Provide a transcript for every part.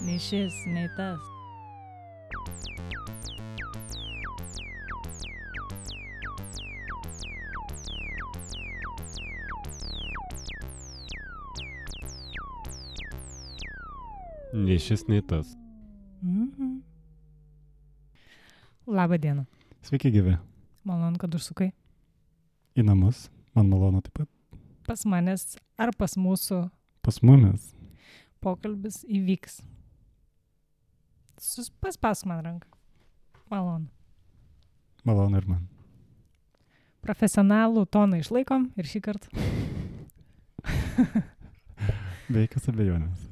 Nei šis, nei tas. Nei šis, nei tas. Labą dieną. Sveiki gyvi. Malonu, kad užsukai. Į namus. Man malonu taip pat. Pas manęs ar pas mūsų Pas mumis. pokalbis įvyks. Paspask man ranką. Malonu. Malonu ir man. Profesionalų toną išlaikom ir šį kartą. Be jokios abejonės.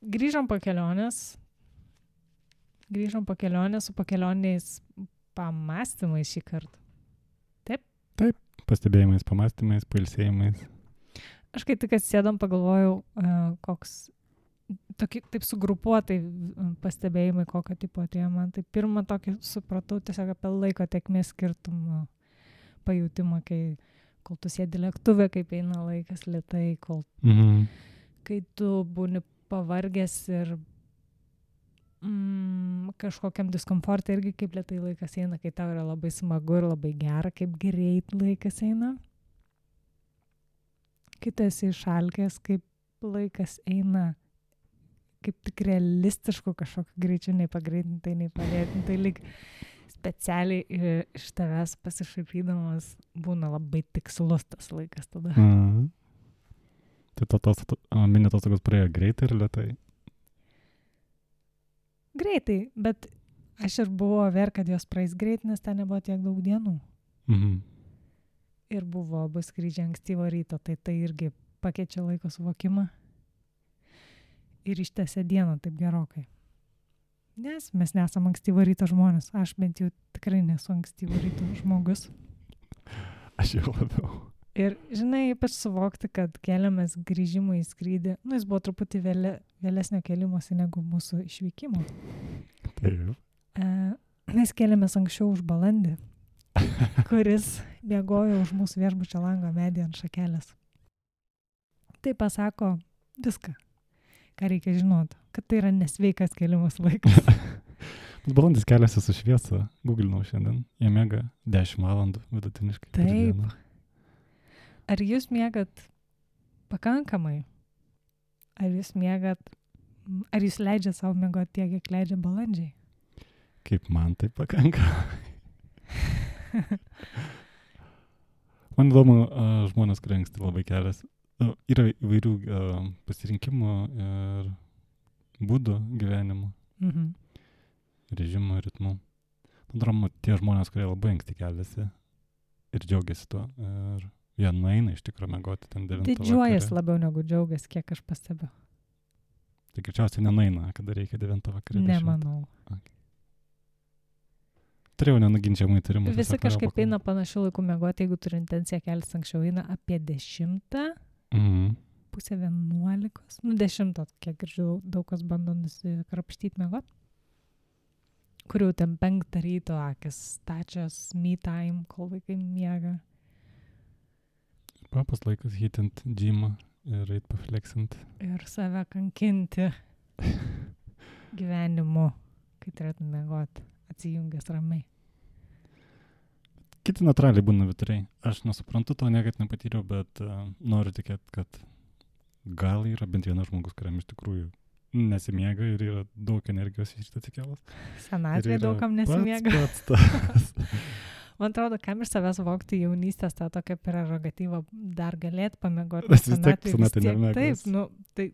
Grįžom po kelionės. Grįžom po kelionės su pakelionės pamastymais šį kartą. Pastebėjimais, pamastymais, pailsėjimais. Aš kai tik atsėdom, pagalvojau, koks taip sugrupuotai pastebėjimai, kokio tipo atėjo man. Tai pirmą tokį supratau tiesiog apie laiko tėkmės skirtumą pajutimą, kol tu sėdi lėktuve, kaip eina laikas lėtai, kai tu būni pavargęs ir kažkokiam diskomfortui irgi kaip lėtai laikas eina, kai tau yra labai smagu ir labai gera, kaip greit laikas eina. Kai tu esi išalkęs, kaip laikas eina, kaip tik realistišku kažkokiu greičiu, nei pagreitintai, nei palėtintai, lyg specialiai iš tavęs pasišaipydamas būna labai tikslus tas laikas tada. Tai tos mini atostogos praėjo greitai ir lėtai. Greitai, bet aš ir buvau ver, kad jos praeis greit, nes ten nebuvo tiek daug dienų. Ir buvo abu skrydžiai ankstyvo ryto, tai irgi pakeičia laiko suvokimą ir ištęsia dieną taip gerokai. Nes mes nesam ankstyvo ryto žmonės. Aš bent jau tikrai nesu ankstyvo ryto žmogus. Aš jau labiau. Ir, žinai, ypač suvokti, kad keliamės grįžimui į skrydį, jis buvo truputį vėlesnio kelimosi negu mūsų išvykimo. Taip. Mes keliamės anksčiau už balandį, kuris bėgojo už mūsų viešbučio lango medį ant šakelės. Tai pasako viską, ką reikia žinoti, kad tai yra nesveikas kelimas laikas. Balandis keliasi su šviesa, googlinau šiandien, jie miega 10 valandų vidutiniškai. Taip. Ar jūs miegat pakankamai? Ar jūs leidžiat savo miegoti tiek, kiek leidžia balandžiai? Kaip man tai pakanka. Man įdomu, žmonės, kurie anksti labai keliasi. Yra įvairių pasirinkimų ir būdų gyvenimo, režimo, ritmų. Atrodo, tie žmonės, kurie labai anksti keliasi ir džiaugiasi tuo. Ir jie nueina iš tikrųjų miegoti ten 9 vakare. Didžiuojas labiau negu džiaugias, kiek aš pastebiu. Tai greičiausiai nenueina, kada reikia 9 vakare. Nemanau. Okay. Turėjau nenuginčiamų įtarimų. Visi kažkaip eina panašių laikų miegoti, jeigu turi intenciją keltis anksčiau, eina apie 10, pusę 11, 10, kiek girdžiu, daug kas bando nusikrapštyti miegoti. Kur jau ten 5 ryto akis stačios, me time, kol vaikai miega. Papas laikas hitint džymą ir eit pafleksint. Ir save kankinti gyvenimu, kai turėtum miegoti, atsijungęs ramiai. Kiti natūraliai būna vituriai. Aš nesuprantu to, niekad nepatyriau, bet noriu tikėti, kad gal yra bent vienas žmogus, kuriam iš tikrųjų nesimiega ir yra daug energijos iš šitą atsikėlas. Senatvėje daugam nesimiega. Pats. Man atrodo, kam iš savęs vokti jaunystės tą tokią prerogatyvą dar galėt pamiegoti. Vis tiek senatvė nemiegas. Taip, tai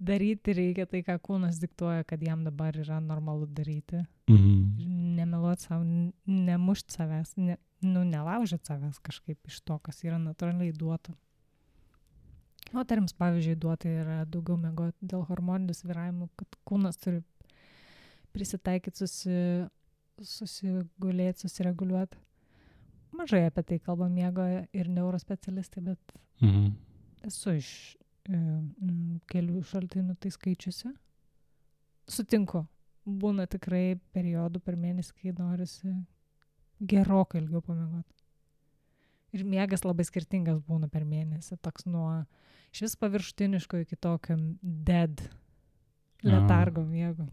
daryti reikia tai, ką kūnas diktuoja, kad jam dabar yra normalu daryti. Nemeluoti savo, nemušti savęs, nelaužyti savęs kažkaip iš to, kas yra natūraliai duota. Moterims, pavyzdžiui, duota yra daugiau miegoti dėl hormoninių svyravimų, kad kūnas turi prisitaikyti, susigulėti, susireguliuoti. Mažai apie tai kalba miego ir neurospecialistai, bet esu iš kelių šaltinių tai skaičiusi. Sutinku, būna tikrai periodų per mėnesį, kai norisi gerokai ilgiau pamiegoti. Ir miegas labai skirtingas būna per mėnesį, toks nuo iš vis paviršutiniško iki tokio dead letargo miego.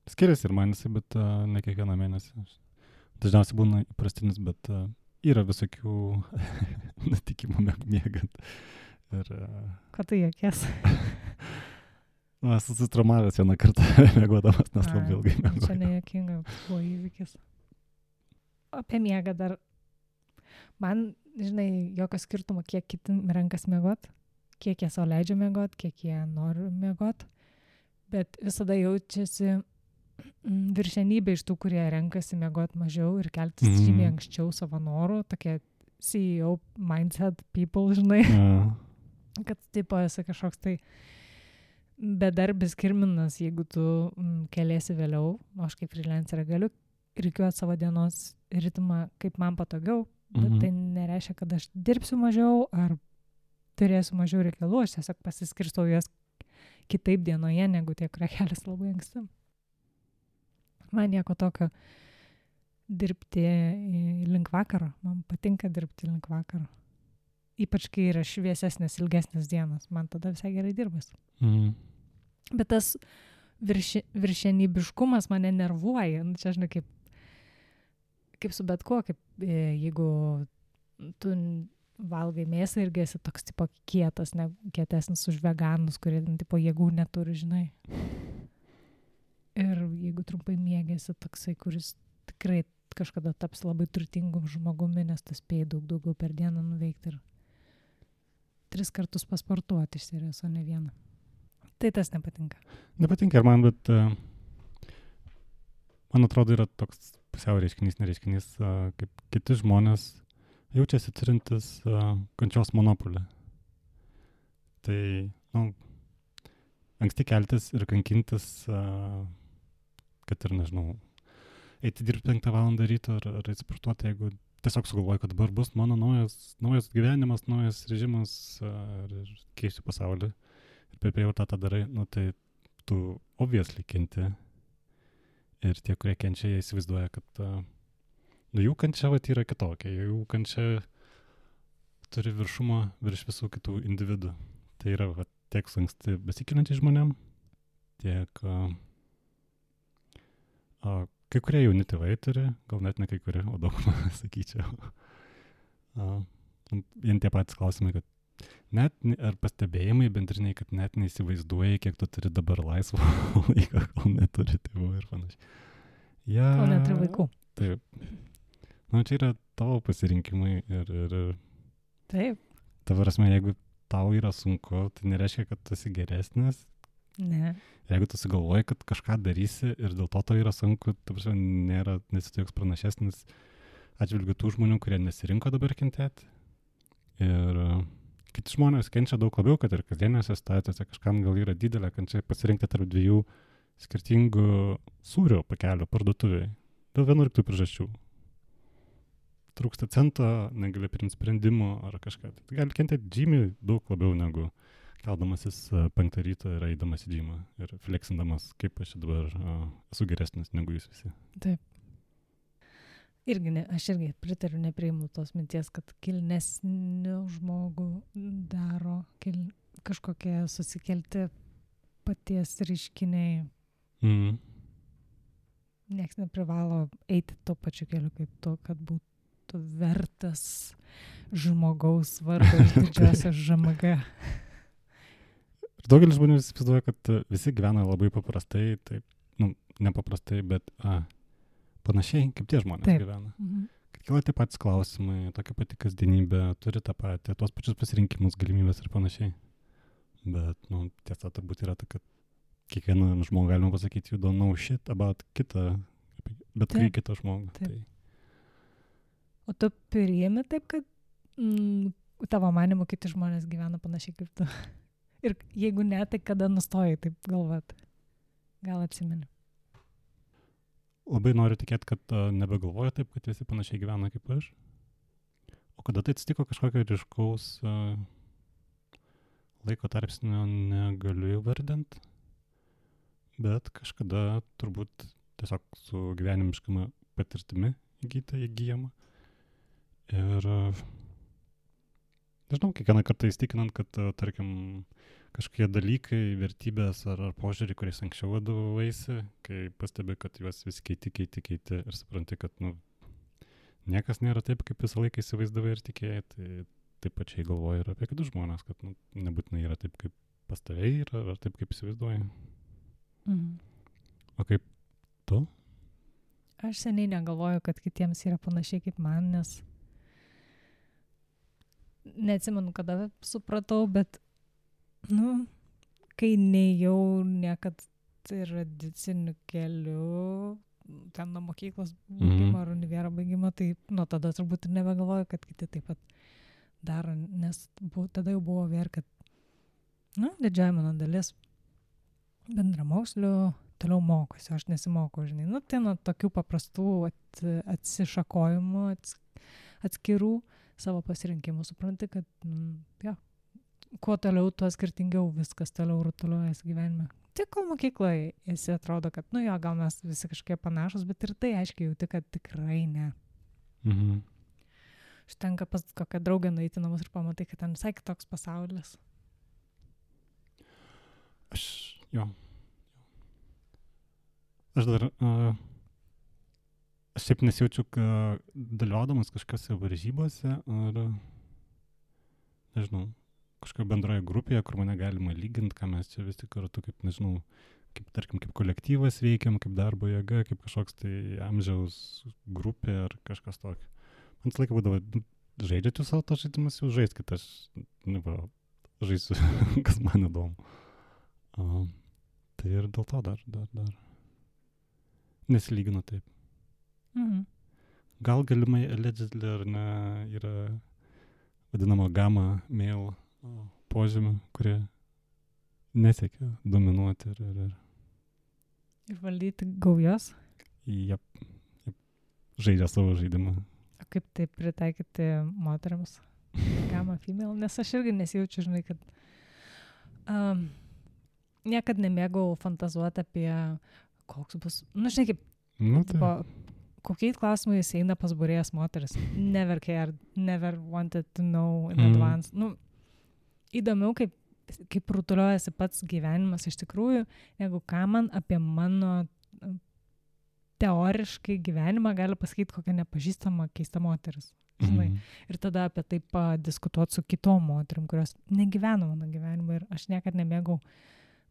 Skiriasi ir man jisai, bet ne kiekvieną mėnesį. Dažniausiai būna įprastinis, bet yra visokių nutikimų miegant. Ir, Ko tu juokies? esu susitraumavęs vieną kartą miegodamas, nes labai ilgai miegojau. Čia nejuokinga, buvo įvykis. Apie miegą dar. Man, žinai, jokio skirtumo, kiek kiti renkas miegot, kiek jie sau leidžia miegot, kiek jie nori miegot, bet visada jaučiasi viršenybė iš tų, kurie renkasi miegot mažiau ir keltis žymiai anksčiau savo norų, tokie CEO mindset people, žinai, kad tipo esi kažkoks tai bedarbis kirminas, jeigu tu keliesi vėliau, o aš kaip freelancerė galiu rikiuoti savo dienos ritmą kaip man patogiau, bet tai nereiškia, kad aš dirbsiu mažiau ar turėsiu mažiau reikalų, aš tiesiog pasiskirstau jas kitaip dienoje, negu tie, kurie keliasi labai anksti. Man nieko tokio dirbti link vakaro. Man patinka dirbti link vakaro. Ypač, kai yra šviesesnės, ilgesnės dienos. Man tada visai gerai dirbas. Bet tas viršenybiškumas mane nervuoja. Čia, žinai, kaip su bet kuo, kaip jeigu tu valgai mėsą irgi esi toks tipo kietas, ne kietesnis už veganus, kurie tipo jėgų neturi, žinai. Ir jeigu trumpai miegėsi toksai, kuris tikrai kažkada taps labai turtingum žmogumi, nes tu spėjai daugiau per dieną nuveikti ir 3 kartus pasportuoti iš serijos, o ne vieną. Tai tas nepatinka. Nepatinka ir man, bet man atrodo yra toks pusiau reiškinys, nereiškinys, kaip kiti žmonės jaučiasi turintis kančios monopolį. Tai, anksti keltis ir kankintis, kad ir, nežinau, eiti dirbti 5 valandą ryto ar sportuoti, jeigu tiesiog sugalvoju, kad dabar bus mano naujas gyvenimas, naujas režimas ir keisiu pasaulį. Ir per prievartą tą darai, tai tu obviously kenti. Ir tie, kurie kenčia, jie įsivaizduoja, kad jų kančia yra kitokia, jų kančia turi viršumą virš visų kitų individų. Tai yra tiek su anksti besikeliančiais žmonėm, tiek kai kurie jauni tėvai turi, gal net ne kai kurie, o daugumą, sakyčiau. Vien tie patys klausimai, kad net, ar pastebėjimai bendriniai, kad net neįsivaizduoji, kiek tu turi dabar laisvo laiko, kol neturi tėvų ir panašiai. Kol neturi vaikų. Taip. Čia yra tavo pasirinkimai ir taip. Ta prasme, jeigu tau yra sunku, tai nereiškia, kad tu esi geresnis. Ne. Jeigu tu sugalvoji, kad kažką darysi ir dėl to yra sunku, ta prasme, nesi tu joks pranašesnis atžvilgiu tų žmonių, kurie nesirinko dabar kentėti. Ir kiti žmonės kenčia daug labiau, kad ir kasdienėse situacijose kažkam gal yra didelė kančia pasirinkti tarp 2 skirtingų sūrio pakelių parduotuvėje. Dėl vienų ir tų priežasčių. Trūksta cento, negali priimti sprendimų ar kažką. Tai gali kentėti žymiai daug labiau negu keldamasis 5 ryto ir eidamas į džymą ir fleksindamas, kaip aš dabar esu geresnis negu jūs visi. Taip. Aš irgi pritariu, nepriimu tos minties, kad kilnesnių žmogų daro kažkokie susikelti paties reiškiniai. Niekas neprivalo eiti tuo pačiu keliu kaip tu, kad būtų vertas žmogaus vardo iš didžiosios ŽMG. Ir daugelis žmonių įsivaizduoja, kad visi gyvena labai paprastai, taip, nepaprastai, bet panašiai, kaip tie žmonės gyvena. Kad kyla tie patys klausimai, tokia pati kasdienybė, turi tą patį, tuos pačius pasirinkimus, galimybės ir panašiai. Bet, tiesa turbūt yra ta, kad kiekvieną žmogų galima pasakyti, you don't know shit about kitą, bet kai kitą žmogų. Tai. O tu priimi taip, kad tavo manimu kiti žmonės gyvena panašiai kaip tu? Ir jeigu ne, tai kada nustojai taip galvoti? Gal atsimeni? Labai noriu tikėti, kad nebegalvoju taip, kad visi panašiai gyvena kaip aš. O kada tai atsitiko kažkokio ryškaus laiko tarpsnio negaliu įvardinti, bet kažkada turbūt tiesiog su gyvenimiškama patirtimi įgyjama. Ir nežinau, kiekvieną kartą įstikinant, kad, tarkim, kažkokie dalykai, vertybės ar požiūrį, kuriais anksčiau vadovavaisi, kai pastebi, kad juos vis keiti ir supranti, kad niekas nėra taip, kaip visą laiką įsivaizdavai ir tikėjai, tai taip pačiai galvoji ir apie kitus žmonės, kad nebūtinai yra taip, kaip pas tave yra, ar taip, kaip įsivaizduoji. O kaip tu? Aš seniai negalvoju, kad kitiems yra panašiai kaip man, nes neatsimenu, kada supratau, bet kai nejau niekad tradiciniu keliu, ten nuo mokyklos baigimo ar univero baigimo, tai nuo tada turbūt ir nebegalvoju, kad kiti taip pat daro, nes tada jau buvo vėl, kad didžioji mano dalis bendramokslių toliau mokosi, aš nesimokau, žinai. Tai nuo tokių paprastų atsišakojimų, atskirų savo pasirinkimų, supranti, kad kuo toliau, tuo skirtingiau viskas toliau rutuliuojasi gyvenime. Tik kol mokykloje esi atrodo, kad gal mes visi kažkiek panašus, bet ir tai aiškiai jauti, kad tikrai ne. Užtenka pas kokią draugę nueiti namus ir pamatai, kad ten visai kitoks pasaulis. Aš dar aš šiaip nesijaučiu, dalyvaudamas kažkokiose varžybose ar, nežinau, kažkokio bendroje grupėje, kur mane galima lyginti, ką mes čia vis tik kartu, kaip, nežinau, tarkim, kaip kolektyvas veikiam, kaip darbo jėga, kaip kažkoks tai amžiaus grupė ar kažkas tokio. Man visą laiką būdavo, žaidžiate savo to žaidimas, jau žaiskit, aš žaisiu, kas man įdomu. Tai ir dėl to dar nesilyginu taip. Gal galimai allegedly ar ne yra vadinamo gamma male požymių, kurie nesiekia dominuoti ir valdyti gaujas. Jep. Žaidžia savo žaidimą. O kaip tai pritaikyti moteriams? Gamma female? Nes aš irgi nesijaučiu, žinai, kad niekad nemėgau fantazuoti apie koks bus, žinai, kaip kokiais klausimais eina pas būrėjas moteris. Never cared, never wanted to know in advance. Įdomiau, kaip rutuliuojasi pats gyvenimas iš tikrųjų, negu ką man apie mano teoriškai gyvenimą gali pasakyti kokia nepažįstama keista moteris. Žinai. Ir tada apie tai padiskutuoti su kitom moterim, kurios negyveno mano gyvenimą ir aš niekad nemėgau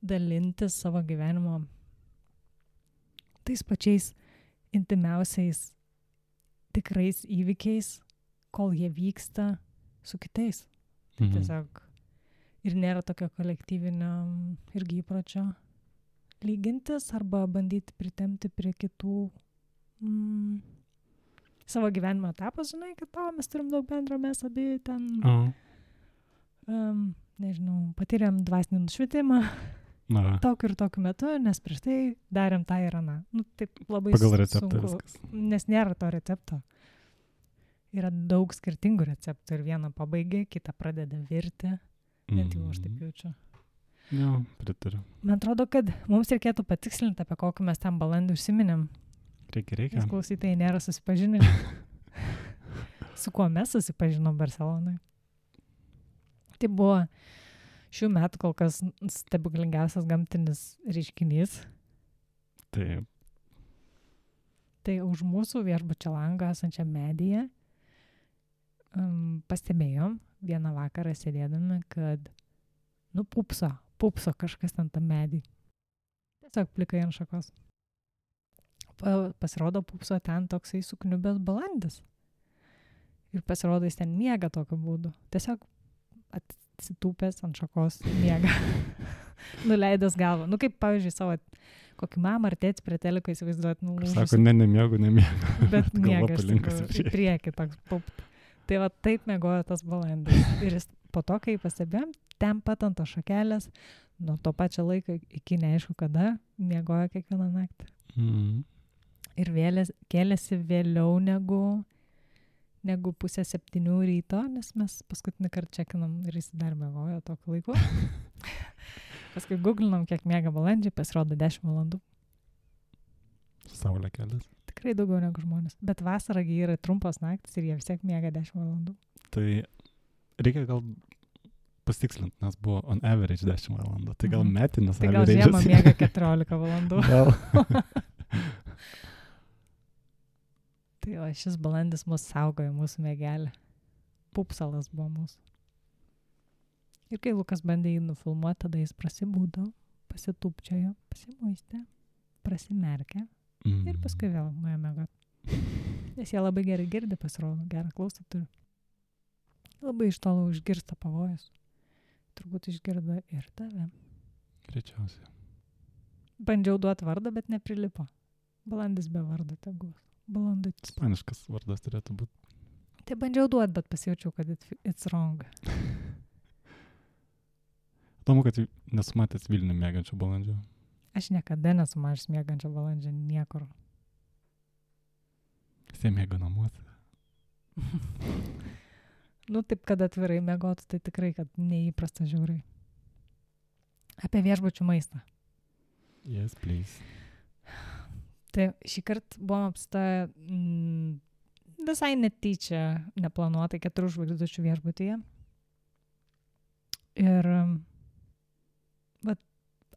dalintis savo gyvenimo tais pačiais intimiausiais tikrais įvykiais, kol jie vyksta su kitais. Tai tiesiog ir nėra tokio kolektyvinio irgi įpročio lygintis arba bandyti pritempti prie kitų savo gyvenimo etapą, žinai, kad mes turim daug bendro, mes abi ten nežinau, patyrėm dvasinį nušvitimą tokiu ir tokiu metu, nes prieš tai darėm tą ir aną. Taip labai pagal receptą sunku, viskas. Nes nėra to recepto. Yra daug skirtingų receptų ir vieną pabaigia, kitą pradeda virti. Net jau aš taip jaučiu. Jo, pritariu. Man atrodo, kad mums reikėtų patikslinti, apie kokį mes tam balandį užsiminėm. Reikia. Nes klausytojai nėra susipažinę. Su kuo mes susipažinom Barcelonai. Tai buvo šių metų kol kas stebuklingiausias gamtinis reiškinys. Taip. Tai už mūsų viešbučio lango esančią medyje pastebėjom vieną vakarą sėdėdami, kad pupso kažkas ten tam medį. Tiesiog plikai ant šakos. Pasirodo pupso ten toksai sukniubęs balandis. Ir pasirodo jis ten miega tokiu būdu. Tiesiog atsitūpęs ant šakos miega. Nuleidęs galvą. Kaip pavyzdžiui savo kokį mamą ar tėtį prie teliko įsivaizduot. Sako, nemiegu. Bet miega iš tikrųjų į priekį toks pupt. Tai va taip miegojo tas balandis. Ir jis po to, kai pastebėjom, ten pat ant to šakelės, nuo to pačio laiko iki neaišku kada, miegojo kiekvieną naktį. Ir kėlėsi vėliau negu 6:30 ryto, nes mes paskutinį kartą čekinam ir jis dar miegojo tokiu laiku. Paskui googlinam, kiek miega balandžiai, pasirodo 10 valandų. saulę kelias. Tikrai daugiau negu žmonės. Bet vasaragi yra trumpos naktis ir jie vis tiek miega 10 valandų. Tai reikia gal pasitikslinti, nes buvo on average 10 valandų. Tai gal metinis Tai gal average'as. žiemą miega 14 valandų. Gal. Tai o šis balandis mus saugojo, mūsų mėgelį. Pupsalas buvo mūsų. Ir kai Lukas bandė jį nufilmuoti, tada jis prasibūdo, pasitupčiojo, pasimuistė, prasimerkė ir paskui vėl nuėjo miegot. Nes jie labai gerai girdi, pasirodo, gerą klausą turi. Labai iš tolo užgirsta pavojus. Turbūt išgirdo ir tave. Greičiausiai. Bandžiau duoti vardą, bet neprilipo. Balandis be vardo tegus. Balandutis. Ispaniškas vardas turėtų būti. Tai bandžiau duoti, bet pasijaučiau, kad it's wrong. Įdomu, kad nesu matęs Vilnių mėgančio balandžio. Aš niekada nesu matęs miegančio balandžio niekur. Jis mėga namuose. Nu, taip, kad atvirai miegotų, tai tikrai, kad neįprasta žiūrai. Apie viešbučių maistą. Yes, please. Tai šį kartą buvom apstoję visai netyčia, neplanuotai 4 žvaigždučių viešbutyje. Ir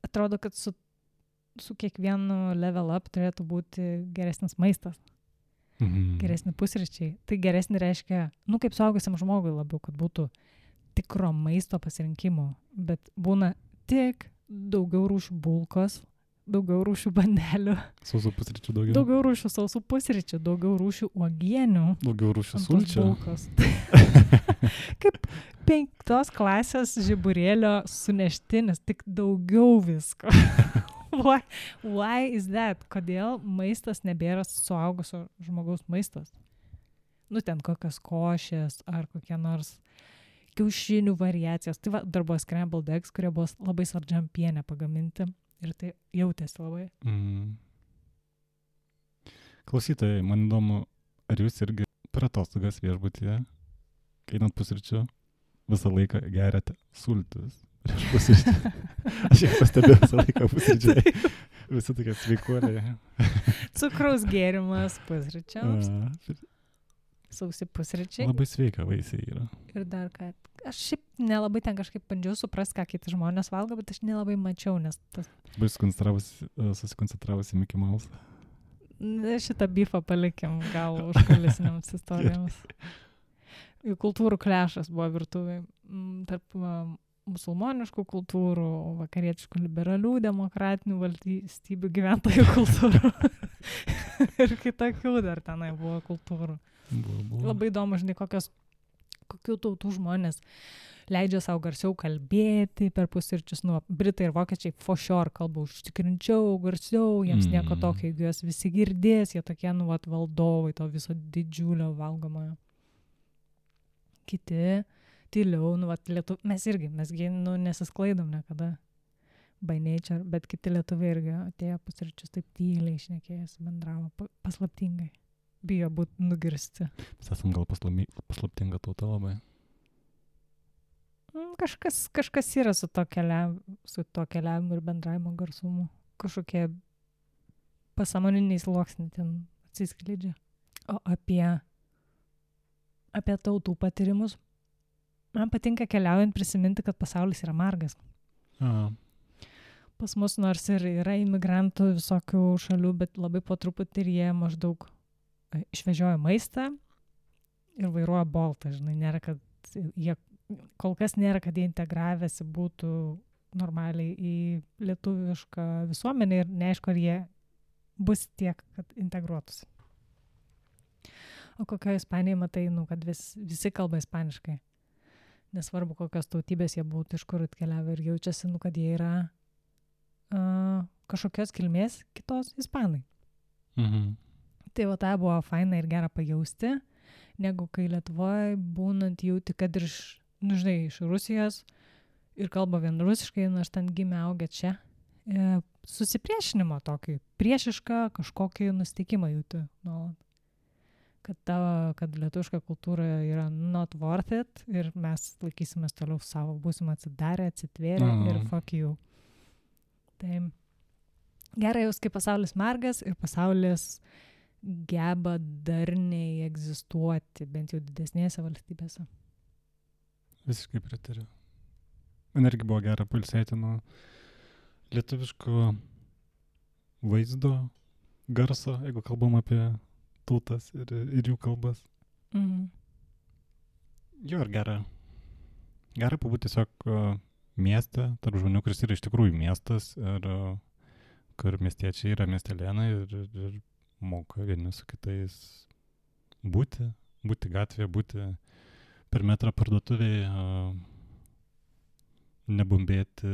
atrodo, kad su kiekvienu level up turėtų būti geresnis maistas. Geresni pusryčiai. Tai geresni reiškia, kaip suaugusiam žmogui labiau, kad būtų tikro maisto pasirinkimo. Bet būna tik daugiau rūšių bulkos, daugiau rūšių bandelių. Sausų pusryčių daugiau. Daugiau rūšių sausų pusryčių, daugiau rūšių uogienių. Daugiau rūšių sulčių. Kaip 5 klasės žiburėlio suneštinis, tik daugiau visko. Why is that? Kodėl maistas nebėra suaugusio žmogaus maistas? Ten kokios košės ar kokie nors kiaušinių variacijos. Tai dar buvo scrambled eggs, kurie buvo labai saldžiam piene pagaminti ir tai jautėsi labai. Klausytojai, man įdomu, ar jūs irgi per atostogas viešbutyje, kai einant pusryčių, visą laiką geriate sultis? Prieš pusryčių. Aš jau pastebėjau visą laiką pusryčiai. Visi tokie sveikuoliai. Cukraus gėrimas pusryčiams. Sausi pusryčiai. Labai sveika vaisiai yra. Ir dar ką. Aš šiaip nelabai ten kažkaip bandžiau suprast, ką kiti žmonės valgo, bet aš nelabai mačiau, nes tas... Labai susikoncentravusi Mickey Mouse. Šitą bifą palikim gal užkulisiniams istorijoms. Jų kultūrų klešas buvo virtuvėj. Tarp musulmoniškų kultūrų, vakarietiškų liberalių, demokratinių valstybių gyventojų kultūrų. Ir kitokių dar tenai buvo kultūrų. Buvo. Labai įdomu, žinai, kokių tautų žmonės leidžia savo garsiau kalbėti per pusryčius. Britai ir vokiečiai for sure kalba užtikrinčiau, garsiau, jiems nieko tokio, jeigu jos visi girdės, jie tokie, valdovai to viso didžiulio valgomojo. Kiti tyliau, mesgi nesisklaidom niekada by nature, bet kiti lietuviai irgi atėjo pusryčius taip tyliai šnekėjęs, bendravo paslaptingai. Bijo būti nugirsti. Mes esam gal paslaptinga tauta labai. Kažkas yra su to keliavimu ir bendravimo garsumu. Kažkokie pasąmoniniai sluoksniai ten atsiskleidžia. O apie tautų patyrimus. Man patinka keliaujant prisiminti, kad pasaulis yra margas. Pas mus nors ir yra imigrantų visokių šalių, bet labai po truputį ir jie maždaug išvežioja maistą ir vairuoja boltą. Žinai, kol kas nėra, kad jie integravęsi būtų normaliai į lietuvišką visuomenę ir neaišku, ar jie bus tiek, kad integruotųsi. O kokioje Ispanijoje matai, kad visi kalba ispaniškai. Nesvarbu, kokios tautybės jie būtų, iš kur atkeliavę ir jaučiasi, kad jie yra kažkokios kilmės kitos ispanai. Tai tai buvo faina ir gera pajausti, negu kai Lietuvoje būnant jauti, kad ir iš Rusijos ir kalba vien rusiškai, nors ten gimė augę čia. Susipriešinimo tokį, priešišką kažkokį nusteikimą jauti nuolat. Kad lietuviška kultūra yra not worth it ir mes laikysimės toliau savo, būsim atsidarę, atsitvėrę ir fuck you. Tai Gerai jaus, kai pasaulis margas ir pasaulis geba darniai egzistuoti, bent jau didesnėse valstybėse. Visiškai pritariu. Man irgi buvo gera pailsėti nuo lietuviško vaizdo, garso, jeigu kalbam apie tautas ir jų kalbas. Mhm. Jo, ir gera pabūti tiesiog mieste, tarp žmonių, kuris yra iš tikrųjų miestas ir kur miestiečiai yra miestelėnai ir moka vieni su kitais būti gatvėje, būti per metrą parduotuvėje, nebumbėti,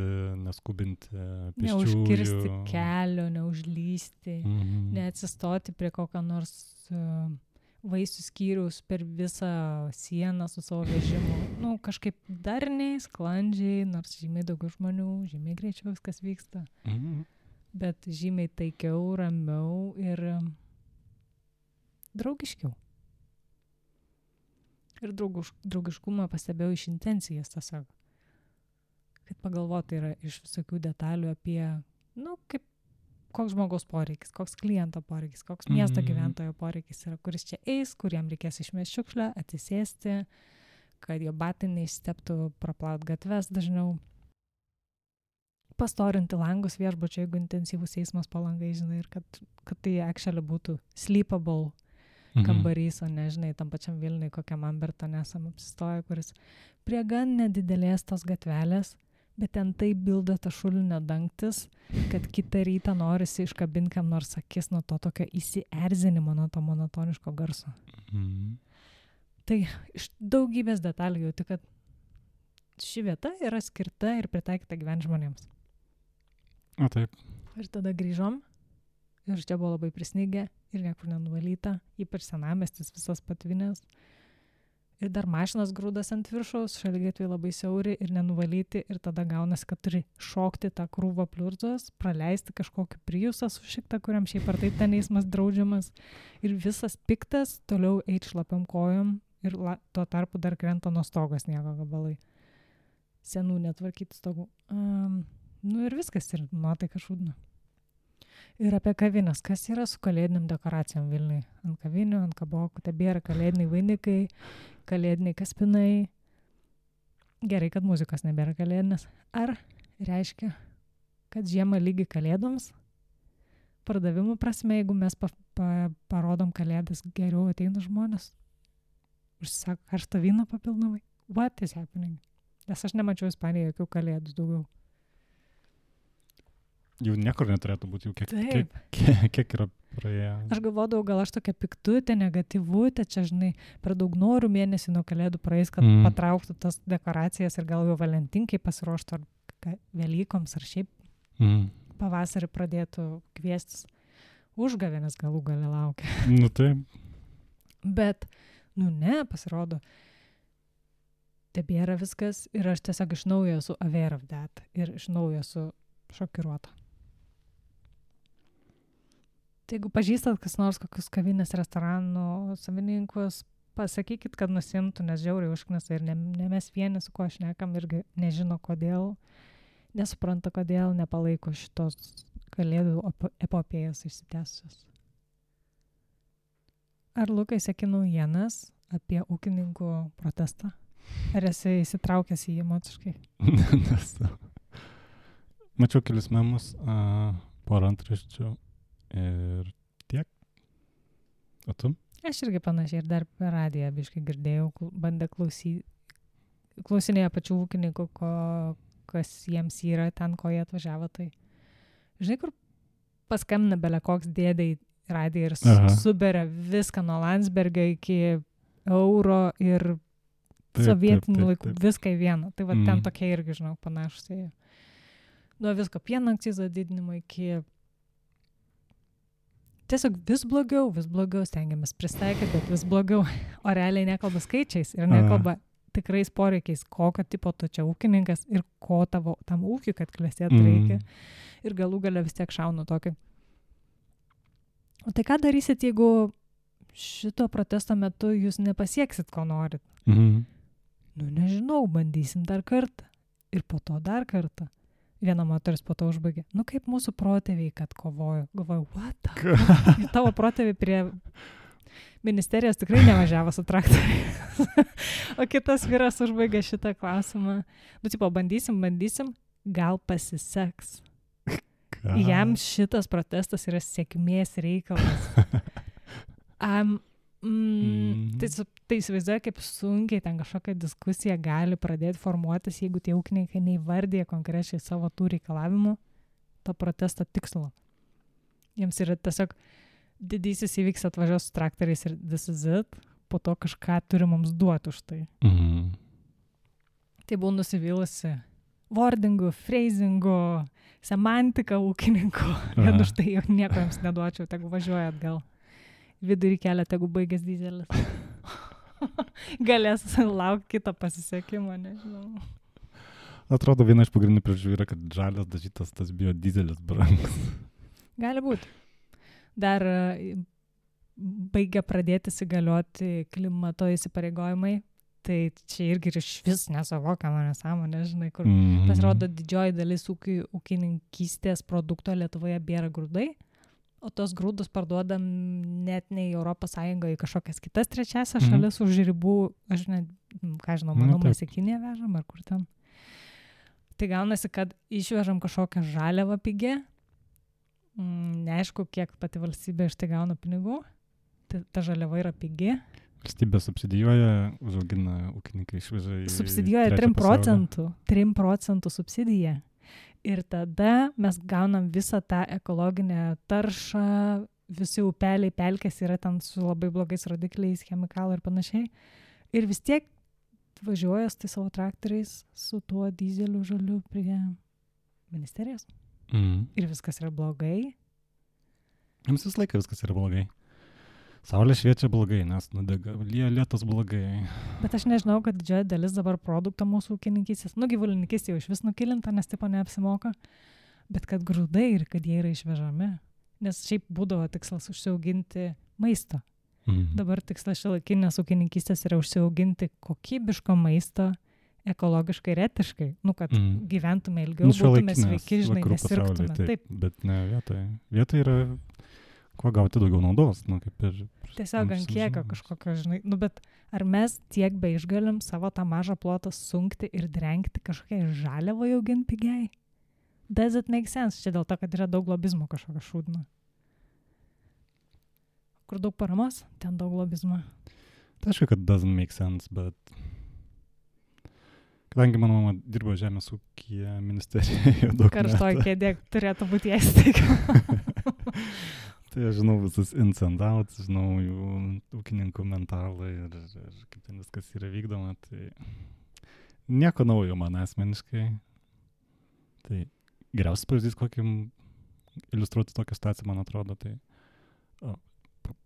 neskubinti pėsčiųjų. Neužkirsti kelio, neužlysti, neatsistoti prie kokio nors vaisių skyriaus per visą sieną su savo vežimu. Nu, kažkaip darniai, sklandžiai, nors žymiai daugiau žmonių, žymiai greičiau viskas vyksta. Bet žymiai taikiau, ramiau ir draugiškiau. Ir draugiškumą pastebėjau iš intencijas tiesiog. Kad pagalvoti yra iš visokių detalių apie, kaip koks žmogaus poreikis, koks kliento poreikis, koks miesto gyventojo poreikis yra, kuris čia eis, kuriem reikės išmesti šiukšlę, atsisėsti, kad jo batai neišsteptų, praplaut gatves dažniau, pastorinti langus viešbučio, jeigu intensyvus eismas po langai, žinai, ir kad tai actually būtų sleepable kambarys, o ne, žinai, tam pačiam Vilniui, kokiam Amberton esam apsistoję, kuris prie gan nedidelės tos gatvelės, bet ten taip bilda ta šulinio dangtis, kad kitą rytą norisi iškabinti kam nors akis nuo to tokio įsierzinimo, nuo to monotoniško garso. Tai iš daugybės detalių jauti, kad ši vieta yra skirta ir pritaikyta gyventi žmonėms. O taip. Ir tada grįžom ir čia buvo labai prisnigę ir niekur nenuvalyta, ypač senamiestis visas patvinės. Ir dar mašinas grūdas ant viršaus, šaligatviai labai siauri ir nenuvalyti ir tada gaunasi, kad turi šokti tą krūvą pliurzos, praleisti kažkokį Priusą sušiktą, kuriam šiaip ar taip ten eismas draudžiamas ir visas piktas toliau eit šlapiam kojom ir tuo tarpu dar krenta nuo stogo sniego gabalai. Senų netvarkyti stogų. Ir viskas ir nuotaika šūdna. Ir apie kavinės, kas yra su kalėdiniam dekoracijom Vilniui. Ant kavinių, ant kabokų, tebėra kalėdiniai vainikai, kalėdiniai kaspinai. Gerai, kad muzikos nebėra kalėdinės. Ar reiškia, kad žiemą lygi kalėdoms? Pardavimų prasme, jeigu mes parodom kalėdas, geriau ateina žmonės. Užsisako karštą vyną papildomai. What is happening? Nes aš nemačiau Ispanijoje jokių kalėdų daugiau. Jau niekur neturėtų būti, jau kiek yra praėję. Aš galvodavau, gal aš tokia piktutė, negatyvutė, čia, žinai, per daug noriu mėnesį nuo kalėdų praeis, kad patrauktų tas dekoracijas ir gal jau valentinkai pasiruoštų ar Velykoms, ar šiaip pavasarį pradėtų kviestis. Užgavėnės galų gale laukia. Taip. Bet, ne, pasirodo, tebėra viskas ir aš tiesiog iš naujo esu aware of that ir iš naujo esu šokiruota. Tai jeigu pažįstat kas nors kokius kavinės restoranų savininkus, pasakykit, kad nusimtų, nes žiauriai užknisa ir ne mes vieni, su kuo šnekam, irgi nežino kodėl, nesupranta kodėl, nepalaiko šitos kalėdų epopėjos išsitęsusios. Ar Lukai seki naujienas apie ūkininkų protestą? Ar esi įsitraukęs į jį emociškai? Nesu. Mačiau kelis memus, porą antraščių ir tiek. O tu? Aš irgi panašiai ir dar per radiją biškai girdėjau, bandė klausinėję pačių ūkininkų, kas jiems yra ten, ko jie atvažiavo. Tai žinai, kur paskambina bele koks dėdai radiją ir suberia viską nuo Landsbergio iki euro ir sovietinių laikų, viską į vieną. Tai va ten tokie irgi, žinau, panašus. Nuo visko pieno akcizo didinimo iki tiesiog vis blogiau stengiamės pristaikyti, bet vis blogiau. O realiai nekalba skaičiais ir nekalba tikrais poreikiais, kokio tipo tu čia ūkininkas ir ko tavo tam ūkiui, kad klestėtų reikia. Ir galų gale vis tiek šaunu tokį. O tai ką darysit, jeigu šito protesto metu jūs nepasieksit, ko norit? Mhm. Nežinau, bandysim dar kartą. Ir po to dar kartą. Viena moteris po to užbaigė. Nu kaip mūsų protėviai, kad kovojo. Galvoju, what the? Tavo protėviai prie ministerijos tikrai nevažiavo su traktoriais. O kitas vyras užbaigė šitą klausimą. Nu, tipo, bandysim, gal pasiseks. Jam šitas protestas yra sėkmės reikalas. Tai įsivaizduoja, kaip sunkiai ten kažkokia diskusija gali pradėti formuotis, jeigu tie ūkininkai neįvardė konkrečiai savo tų reikalavimų, to protesto tikslo. Jiems yra tiesiog didysis įvyks atvažiuos su traktoriais ir this is it, po to kažką turi mums duoti už tai. Tai buvau nusivylusi wordingu, phrasingu, semantika ūkininkų. Ir už tai jau nieko jums neduočiau, tegu važiuoja atgal. Vidurį kelią, tegu baigęs dyzelis. Galės laukti kitą pasisekimą, nežinau. Atrodo, viena iš pagrindinių priežasčių yra, kad žalias dažytas tas biodizelis brangus. Gali būti. Dar baigia pradėti įsigalioti klimato įsipareigojimai. Tai čia irgi iš vis nesuvokiama nesąmonė, žinai, kur pasirodo didžioji dalis ūkininkystės produkto Lietuvoje bėra grūdai, o tos grūdus parduodam net ne į Europos Sąjungą, į kažkokias kitas trečiasias šalis už ribų, aš ne, ką žinau, manau, mes į Kiniją vežam ar kur ten. Tai gaunasi, kad išvežam kažkokią žaliavą pigę, neaišku, kiek pati valstybė iš tai gauna pinigų, ta žaliava yra pigi. Valstybė subsidijuoja, užaugina ūkininkai išveža į... Subsidijuoja 3% subsidiją. Ir tada mes gaunam visą tą ekologinę taršą, visi upeliai, pelkės yra ten su labai blogais rodikliais, chemikalai ir panašiai. Ir vis tiek važiuoja su tai savo traktoriais, su tuo dizeliu žaliu prie ministerijos. Ir viskas yra blogai. Jums visą laiką viskas yra blogai. Saulė šviečia blogai, nes nudega, lietus blogai. Bet aš nežinau, kad didžioji dalis dabar produkto mūsų ūkininkystės, gyvulininkystė jau iš vis nukilinta, nes tipo neapsimoka, bet kad grūdai ir kad jie yra išvežami. Nes šiaip būdavo tikslas užsiauginti maisto. Dabar tikslas šiuolaikinės ūkininkystės yra užsiauginti kokybiško maisto, ekologiškai ir etiškai. Kad gyventume ilgiau, būtume sveiki, žinai, nesirgtume. Taip, bet ne vietoje. Vietoje yra... Kuo gauti daugiau naudos, kaip ir... Tiesiog ant kiekio kažkokio, žinai, bet ar mes tiek be išgalim savo tą mažą plotą sunkti ir drengti kažkokiai žaliavai auginti pigiai? Does it make sense? Čia dėl to, kad yra daug lobizmo kažkokio šūdno. Kur daug paramos, ten daug lobizmo. Tai aišku, kad doesn't make sense, bet... Kadangi mano mama dirbo žemės ūkyje ministerijoje daug metų. Karštoj kėdė turėtų būti ją įsteigama. Tai aš žinau visus ins and outs, žinau jų ūkininkų mentalą ir kaip ten viskas yra vykdoma. Tai nieko naujo man asmeniškai. Tai geriausias pavyzdys, kokį iliustruoti tokią situaciją, man atrodo. Tai,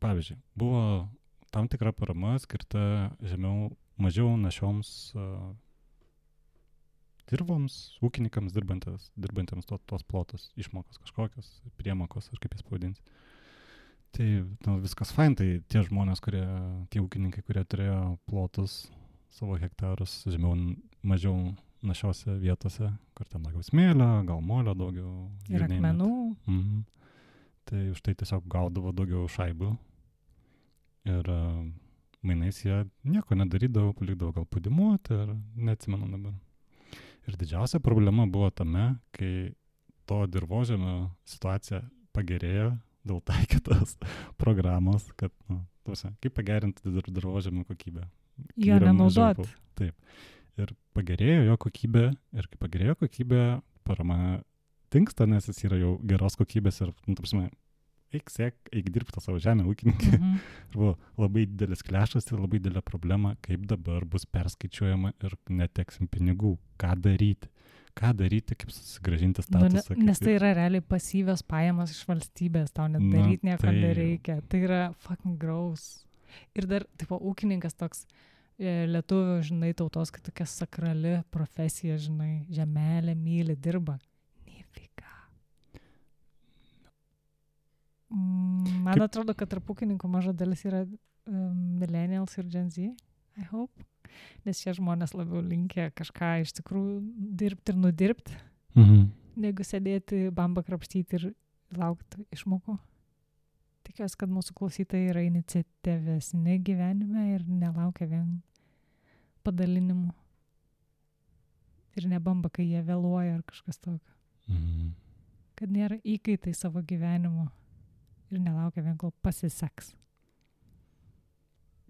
pavyzdžiui, buvo tam tikra parama skirta mažiau našioms dirboms, ūkininkams dirbantiems tos plotus, išmokos kažkokios, priemokos, ar kaip jas pavadinti. Tai viskas fain, tai tie žmonės, tie ūkininkai, kurie turėjo plotus, savo hektarus, mažiau našiose vietose, kur ten daugiau smėlio, gal molio daugiau. Ir akmenų. Tai už tai tiesiog gaudavo daugiau šaibų. Ir mainais jie nieko nedarydavo, palikdavo gal padimuoti, ir neatsimenu dabar. Ir didžiausia problema buvo tame, kai to dirvožemio situacija pagerėjo dėl taikytos programos, kad, kaip pagerinti dirvožemio kokybę. Jo nenaudot. Taip. Ir pagerėjo jo kokybė, ir kai pagerėjo kokybė, parama tinksta, nes jis yra jau geros kokybės ir, eik dirbti tą savo žemę ūkininkai. Ir buvo labai didelis klešas ir labai didelė problema, kaip dabar bus perskaičiuojama ir neteksim pinigų. Ką daryti, kaip susigrąžinti statusą. Nes tai yra realiai pasyvios pajamos iš valstybės, tau net daryti nieko nereikia. Tai yra fucking gross. Ir dar, ūkininkas toks lietuvių, žinai, tautos, kad tokia sakrali profesija, žinai, žemelė, myli, dirba. Nifika. Man atrodo, kad tarp ūkininkų maža dalis yra millennials ir Gen Z, I hope. Nes šie žmonės labiau linkę kažką iš tikrųjų dirbti ir nudirbti. negu sėdėti, bambą krapštyti ir laukti išmokų. Tikiuosi, kad mūsų klausytojai yra iniciatyvesni gyvenime ir nelaukia vien padalinimų. Ir nebamba, kai jie vėluoja ar kažkas tokio. Mhm. Kad nėra įkaitai savo gyvenimo ir nelaukia vien, kol pasiseks.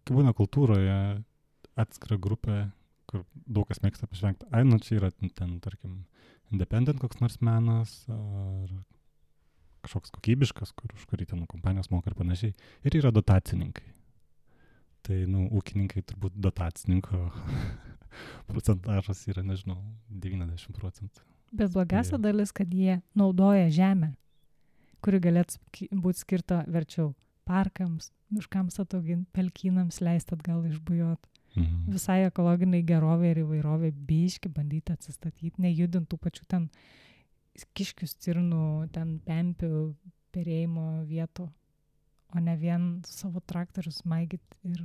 Kai būna kultūroje atskira grupė, kur daug kas mėgsta pažvengti, čia yra ten, tarkim, independent koks nors menas, ar kažkoks kokybiškas, už kurį ten kompanijos moka ir panašiai. Ir yra dotacininkai. Tai, ūkininkai turbūt dotacininko procentažas yra, nežinau, 90%. Bet blogiausia dalis, kad jie naudoja žemę, kuri galėtų būti skirta verčiau parkams, miškams atauginti, pelkynams leisti atgal išbujot. Mhm. Visai ekologiniai gerovė ir įvairovė biški bandyti atsistatyti, nejudintų pačių ten kiškių, stirnų, ten pempių, perėjimo vietų, o ne vien savo traktorius maigyti ir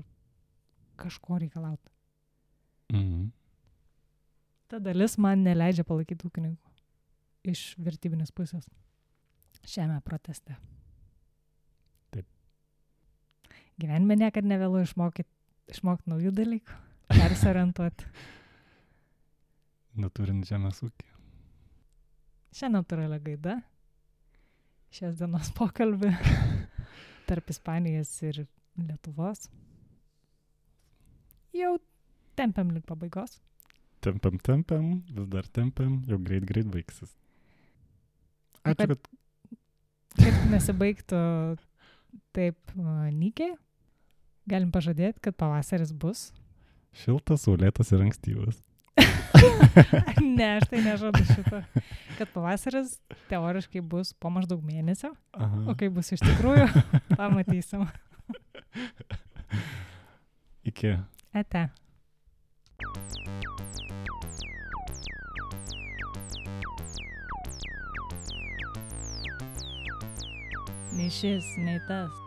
kažko reikalauti. Mhm. Ta dalis man neleidžia palaikyti ūkininkų iš vertybinės pusės šiame proteste. Taip. Gyvenime niekad nevėlu išmokti naujų dalykų, persiorientuoti. Naturint žemės ūkį. Šią natūralią gaidą, šios dienos pokalbį tarp Ispanijos ir Lietuvos. Jau tempiam link pabaigos. Tempiam, vis dar tempiam, jau greit baigsis. Ačiū, kad nesibaigtų taip nykiai, galim pažadėti, kad pavasaris bus. Šiltas, saulėtas ir ankstyvas. Ne, aš tai nežadu šito. Kad pavasaris teoriškai bus po maždaug mėnesio, Aha. o kai bus iš tikrųjų, pamatysim. Iki. Ate. Nei šis, nei tas.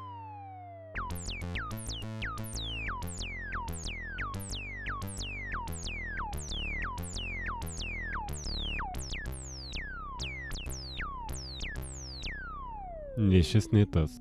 Nei šis, nei tas.